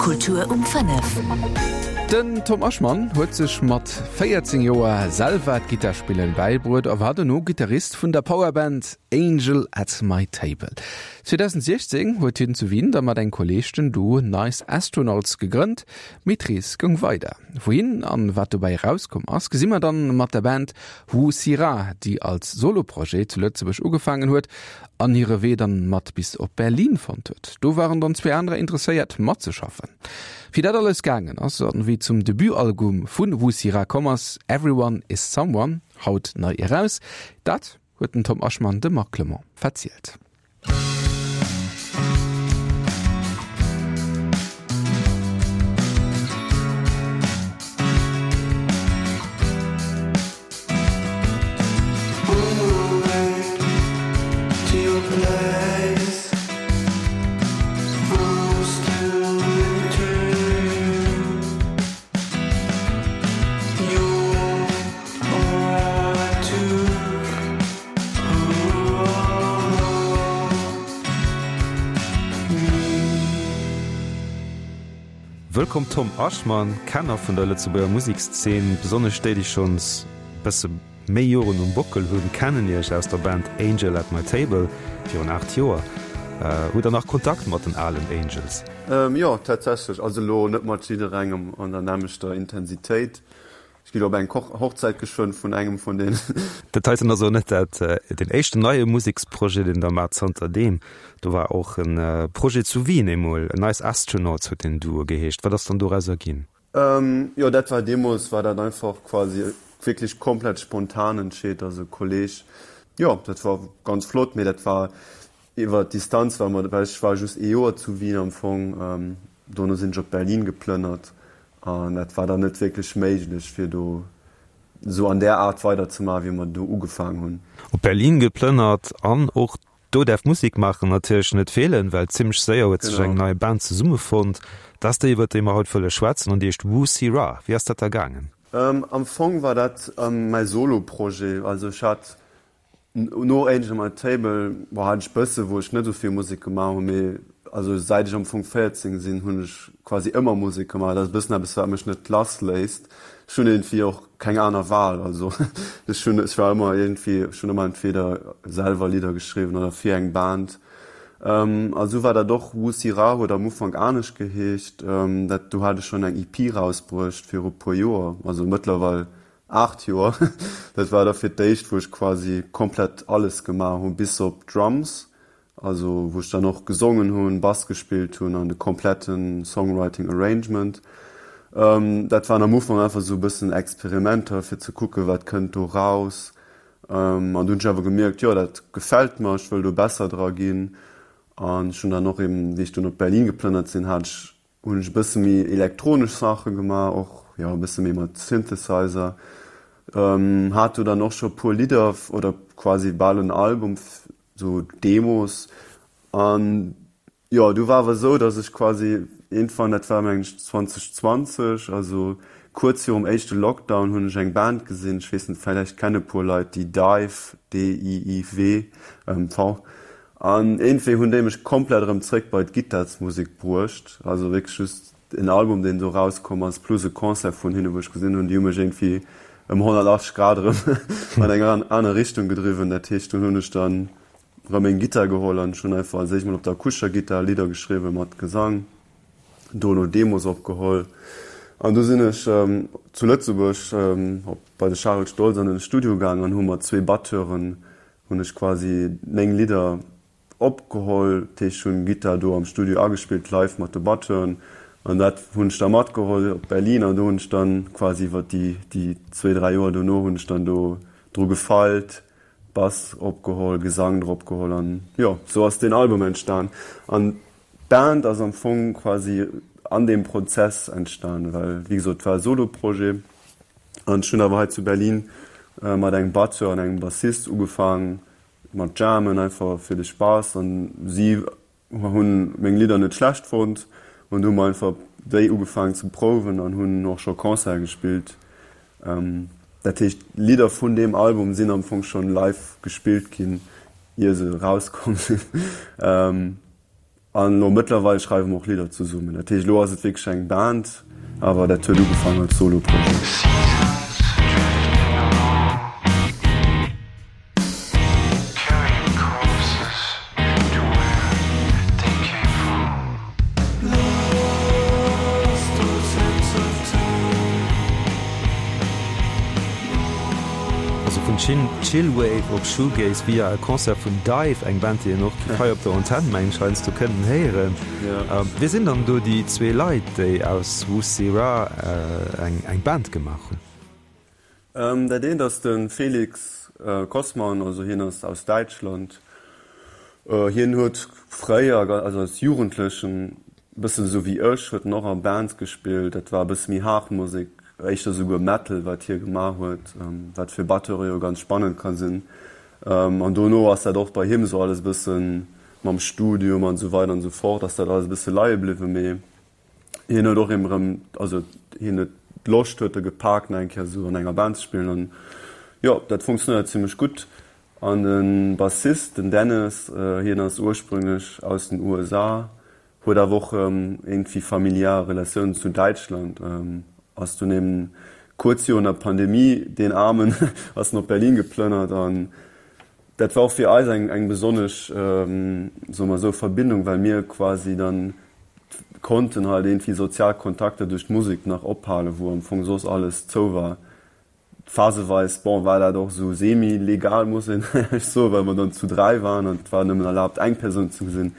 Kultur um 5. Den Tom Aschmann huet sech mat 14 Joer selwer d'Gittarspillen bäibruet a war dono Gittarist vun der Powerband Angel at My Table. 2016 huet hien zu Wien da mat engem Kolleeg den Duo Nice Astronauts gegrënnt, mee d'Rees goung weider. Wouhin an wat dobäi erauskomm ass, gesi mer dann mat der Band Wu Sira, déi als Soloprojet zu Lëtzebuerg ugefaangen huet an hire Wee dann mat bis op Berlin fonnt huet. Do waren dann zwee anerer interesséiert matzeschaffen. Wéi dat alles gaangen ass an wéi zum Debutalbum vun Wussira komm ass, Everyone is Someone, haut nei eraus, dat huet den Tom Aschmann dem Marc Clement verzielt. Wëllkomm Tom Aschmann, Kenner vun der Lëtzebuerger Musekszeen, besonnesch déi, déi schonns bësse méi Joren um Bockel hunn, kennen Iech aus der Band Angel at my Table virun 8 Joer. Hutt der nach Kontakt mat den alen Angels? Jo, tatsächlech. Also elo net mat jidderengem an der nämmlechter Intensitéit. Ech ginn op eng Hochzäit geschwënn vun engem vun deenen. Dat heiten ass och net dat deen éischten neie Museksprojet, deen Der maacht zanter deem. Do war och e Projet zu Wien eemol, Nice Astronauts huet deen Duo geheescht. Wat ass dann dorauser ginn? Jo, dat war deemools war dat einfach quasi wierklech komplett spontan entscheet. Also e Kolleg, jo, dat war ganz flott, mee dat war iwwer d'Distanz, well mer, well ech war just ee Joer zu Wien am Fong, dono sinn ech op Berlin geplënnert an dat war dann net wierklech méiglech fir do esou an där Aart weiderzemaachen, wéi mer do ugefaang hunn. Op Berlin geplënnert an och Do däerf Musik maachen natierlech net feelen, well zimmlech séier huet sech eng nei Band zesummefonnt. Dat ass déi, iwwer déi mer haut wëlle schwätzen an déi heescht Wu Si Ra. Wéi ass dat da gaangen? Am Fong war dat mäi Solo-Projet. Also ech hat no Angel My Table, bon, hat ech bësse wou ech net esou vill Musek gemaach hunn, mee also säit ech am Fong 14 sinn, hunn ech quasi ëmmer Musek gemaach. Dat ass e bëssen eppes, wat mech net lassléisst. Ech hunn iergendwéi och keng aner Wahl, also ech hunn, ech war ëmmer iergendwéi, ech hunn ëmmer entweder selwer Lidder geschriwwen oder fir eng Band. A sou war dat och, Wusi Ra huet am Ufank anescht geheescht, dat do hat ech schonn eng EP rausbruecht viru puer Joer, also mëttlerweil 8 Joer. Dat war da fir d'éischt, wou ech quasi komplett alles gemaach hunn, bis op d'Drums. Also wou ech dann och gesongen hunn, Bass gespillt hunn an de kompletten Songwriting Arrangement. Dat waren am Ufank einfach sou e bëssen Experimenter fir ze kucken, wat kënnt do raus. An du hunn ech awer gemierkt, jo dat gefält mer, ech wëll do besser dra ginn. An ech hunn dann och eben, wéi ech dunn op Berlin geplënnert sinn, hat ech hunn ech e bësse méi elektronesch Saache gemaach, och jo e bësse méi mat Synthesizer. Hat do dann och scho puer Lidder oder quasi bal en Album sou Demos an jo du war awer esou dass ech quasi iergendwann, dat war mengen ech 2020, also kuerz virum éischte Lockdown hunn ech eng Band gesinn, ech weess net vläicht kenne puer Leit déi Dive, D-I-I-W, V, an iergendwéi hunn déi mech komplett erëm zréck bei d'Gittarsmusek bruecht, also wierklech just en Album deen do rauskomm ass plus e Concert vun hinne wou ech gesinn hunn, déi hu mech iergendwéi ëm 180 Grad erëm an eng aner Richtung gedriwwen. Dat heescht dunn hunn ech dann erëm meng Gittar geholl an ech hunn einfach als éischt mol op der akustescher Gittar Lidder geschriwwen mat Gesang, dono Demos opgeholl an du sinn ech zu Lëtzebuerg op bei de Charel Stoltz an den Studio gaang an hu mat zwee Batteuren hunn ech quasi meng Lidder Opgeholl, dat heescht ech hunn Gittar do am Studio agespillt live mat de Batteuren an dat hunn ech da matgeholl op Berlin an do hunn ech dann quasi iwwer déi déi zwéi 3 Joer dono hunn ech dann do dru gefeilt, Bass opgeholl, Gesang drop geholl an jo sou ass deen Album entstan an d'Band ass am Fong quasi an deem Prozess entstan, well wéi gesot et war e Solo-Projet an ech hunn awer hei zu Berlin mat engem Batteur an engem Bassist ugefaang Mat jammen einfach fir de Spaass an si hunn meng Lidder net schlecht fonnt an du hu mer einfach déi ugefaangen ze prouwen an hunn och scho Concerte gespillt. Dat heescht Lidder vun deem Album sinn am Fong schonn live gespillt ginn ier se erauskomm sinn. An elo mëttlerweil schreiwe mer och Lidder zesummen. Dat heescht, elo ass et wierklech eng Band, awer dat huet ugefaangen als Solo-Projet. Also vun Chillwave op Shoegaze via e Concert vun Dive, eng Band déi een och hei op der Antenn mengen ech heiansdo kënnen héieren. Wie sinn dann do déi zwee Leit déi aus Wussira eng Band gemaach hunn? Dat eent ass de Felix Kossmann, also hien ass aus Däitschland. Hien huet fréier, also als Jugendlechen, Bëssen esou wéi ech, huet en och a Bands gespillt. Dat war e bësse méi haart Musek, éischter esouguer Metal, wat hie gemaach huet, wat fir Batteure jo ganz spannend ka sinn. An dono ass dat och bei him esou alles e bësse mam Studium an esou weider an esou fort, ass dat alles e bësse leie bliwwen. Mee hien huet och erëm, also hien huet d'Loscht huet e gepaakt, nach eng Kéier esou an enger Band ze spillen. An jo, dat funktionéiert zimmlech gutt. An de Bassist, den Dennis, hien ass ursprünglech aus den USA, huet awer och iergendwéi familiar Relatiounen zu Däitschland, ass dunn eben kuerz virun der Pandemie, deen Aarmen, ass en op Berlin geplënnert. An dat war och fir eis eng eng besonnesch, soe mer esou, Verbindung, well mir quasi dann konnten halt iergendwéi sozial Kontakter duerch d'Musek nach ophalen, wou am Fong soss alles zou war. Phaseweis, bon, war dat och esou semi-legal, muss een éierlech soen, well mer dann zu 3 waren an et war nëmmen erlaabt eng Persoun ze gesinn.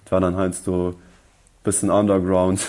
Et war dann heiansdo e bëssen underground.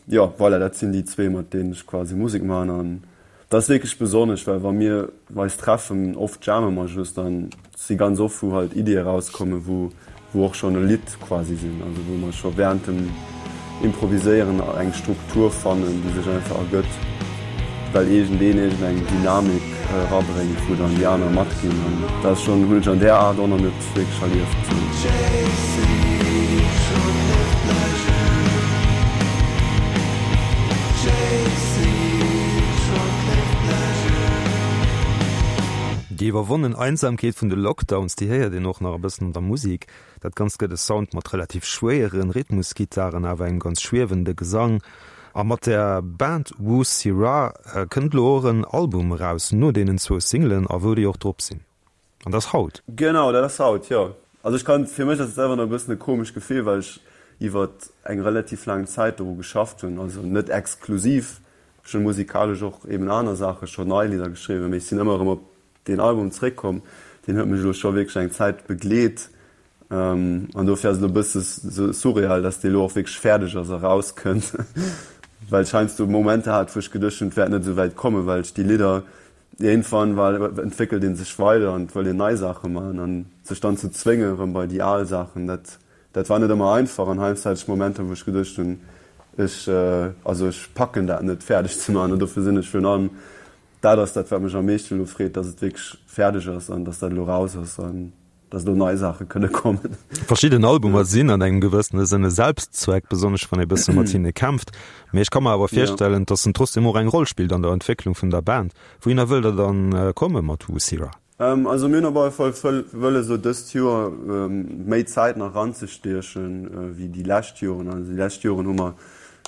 Jo, voilà, dat sinn déi zwee, mat deenen ech quasi Musek maachen an dat ass wierklech besonnesch, well wa mir eis treffen, oft jamme mer just an et si ganz oft, wou halt Iddie erauskommen, wou wou och schonn e Lidd quasi sinn, also wou mer scho während dem Improviséieren eng Struktur fannen, déi sech einfach ergëtt, well iergendeen iergendeng Dynamik erabréngt, wou dann déi aner matginn. An dat ass schonn, hunn ech an där Aart och nach net wierklech erlieft. Déi iwwerwonnen Einsamkeet vun de Lockdowns, déi héiert een och nach e bëssen an der Musik. Dat Ganzt gëtt e Sound mat relativ schwéieren Rhythmusgittaren, awer engem ganz schwiewende Gesang. A mat der Band Wu Sirah kënnt elo och en Album eraus, no deenen zwou Singlen, a wou déi och drop sinn. An dat ass haut. Genau, dat ass haut, jo. Also ech kann, fir mech ass et selwer nach e bëssen e komescht Gefill, well ech iwwert eng relativ laang Zäit doru geschafft hunn, also net exklusiv, Ech hunn musikalesch och eben aner Saache scho, nei Lidder geschriwwen, mee ech sinn ëmmer erëm op deen Album zeréckkomm. Deen huet mech elo scho wierklech eng Zäit begleet an dofir ass et elo e bësse surreal, dass dee elo och wierklech fäerdeg ass a rauskënnt, well ech heiansdo Momenter hat, wou ech geduecht hunn, et wäert net esou wäit kommen, well ech déi Lidder, iergendwann entwéckelt ee sech weider an et wëll een nei Saache maachen an sech dann ze zwéngen erëm bei déi al Saachen, dat Dat war net ëmmer einfach an heiansdo hat ech Momenter, wou ech geduecht hunn, ech, also ech packen dat net fäerdeg ze maachen. An dofir sinn ech virun allem, dat ass dat wat mech am meeschten elo freet, dass et wierklech fäerdeg ass an dass dat elo raus ass an dass elo nei Saache kënne kommen. Verschidden Albumer sinn an engem gewëssene Sënne Selbstzweck, besonnesch wann ee bësse mat hinne kämpft. Mee ech ka mer awer virstellen, dass en trotzdem och eng Roll spillt an der Entwécklung vun der Band. Wouhinner wëllt der dann komme mat Wussira? Also mir hunn op alle Fall wëlles elo dëst Joer méi Zäit nach eranzestiechen wéi déi lescht Joren. Also déi lescht Joren hu mer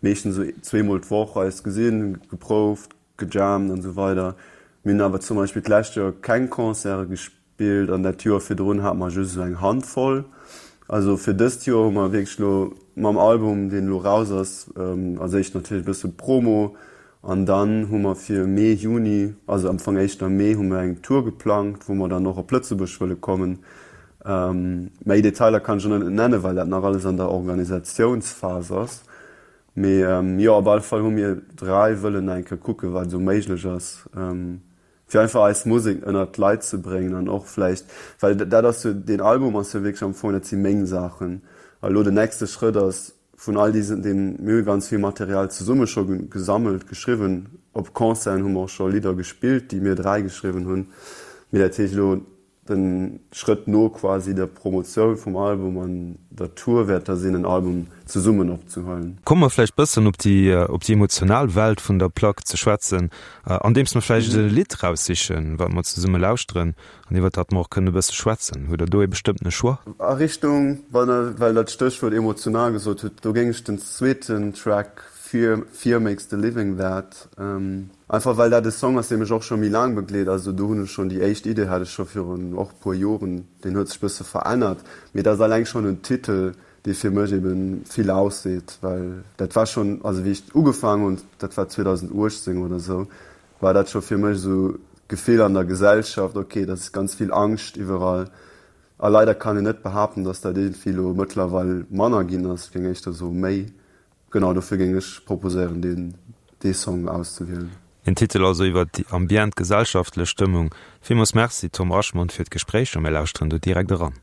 meeschtens esou zweemol d'Woch eis gesinn, geprouft, gejammt an esou weider. Mir hunn awer zum Beispill d'lescht Joer keng Concerte gespillt an dat Joer virdrun hate mer just esou eng Handvoll. Also fir dëst Joer hu mer wierklech elo mam Album, deen elo raus ass, als éischt natierlech e bësse Promo An dann hu mer fir Mee, Juni, also am Fong éischter Mee, hu mer eng Tour geplangt, wou mer dann och op Lëtzebuerg wëlle kommen. Méi Detailer kann ech elo net nennen, well dat nach alles an der Organisatiounsphas ass. Mee jo, op alle Fall hu mir 3 wëllen nach eng Kéier kucken, wat esou méiglech ass, fir einfach eis Musek ënnert d'Leit ze bréngen an och vläicht, well dat ass jo, deen Album ass jo wierklech am Fong, dat si meng Saachen. A elo den nächste Schrëtt ass, Vun all diesen, deem, mir hu ganz vill Material zesumme scho gesammelt, geschriwwen. Op Concerten hu mer och scho Lidder gespillt, déi mir 3 geschriwwen hunn. Mee dat heescht elo. De Schrëtt no quasi der Promotioun vum Album an der Tour wäert da sinn, en Album zesummen opzehuelen. Komme mer vläicht bëssen op déi op déi emotional Welt vun der Plack ze schwätzen, andeems mer vläicht e Lidd raussichen, wat mer zesumme lauschteren an iwwert dat mer och kënnen e bësse schwätzen. Hutt Der do ee bestëmmtene Choix? A Richtung, wann Der, well Der d'Stéchwuert emotional gesot hutt, do géing ech den zweeten Track Fear, Fear Makes the Living That, Einfach well dat e Song ass, dee mech och scho méi laang begleet. Also do hunn ech schonn déi éischt Idee hat ech scho virun och e puer Joren. Deen huet sech bësse verännert, mee dat ass alleng schonn en Titel, dee fir mech eben vill ausseet, well dat war schonn, also wéi ech ugefaangen hunn, dat war 2018 oder esou, war dat scho fir mech esou d'Gefill an der Gesellschaft, ok, dat ass ganz vill Angscht iwwerall. A leider kann een net behaapten, datt dat iergendwéi elo mëttlerweil manner ginn ass, ech géing éischter soe méi. Genau dofir géing ech proposéieren deen dee Song auszewielen. Een Titel also iwwer déi ambient gesellschaftlech Stëmmung. Villmools Merci Tom Aschmond fir d'Gespréich a mir lauschteren do direkt eran.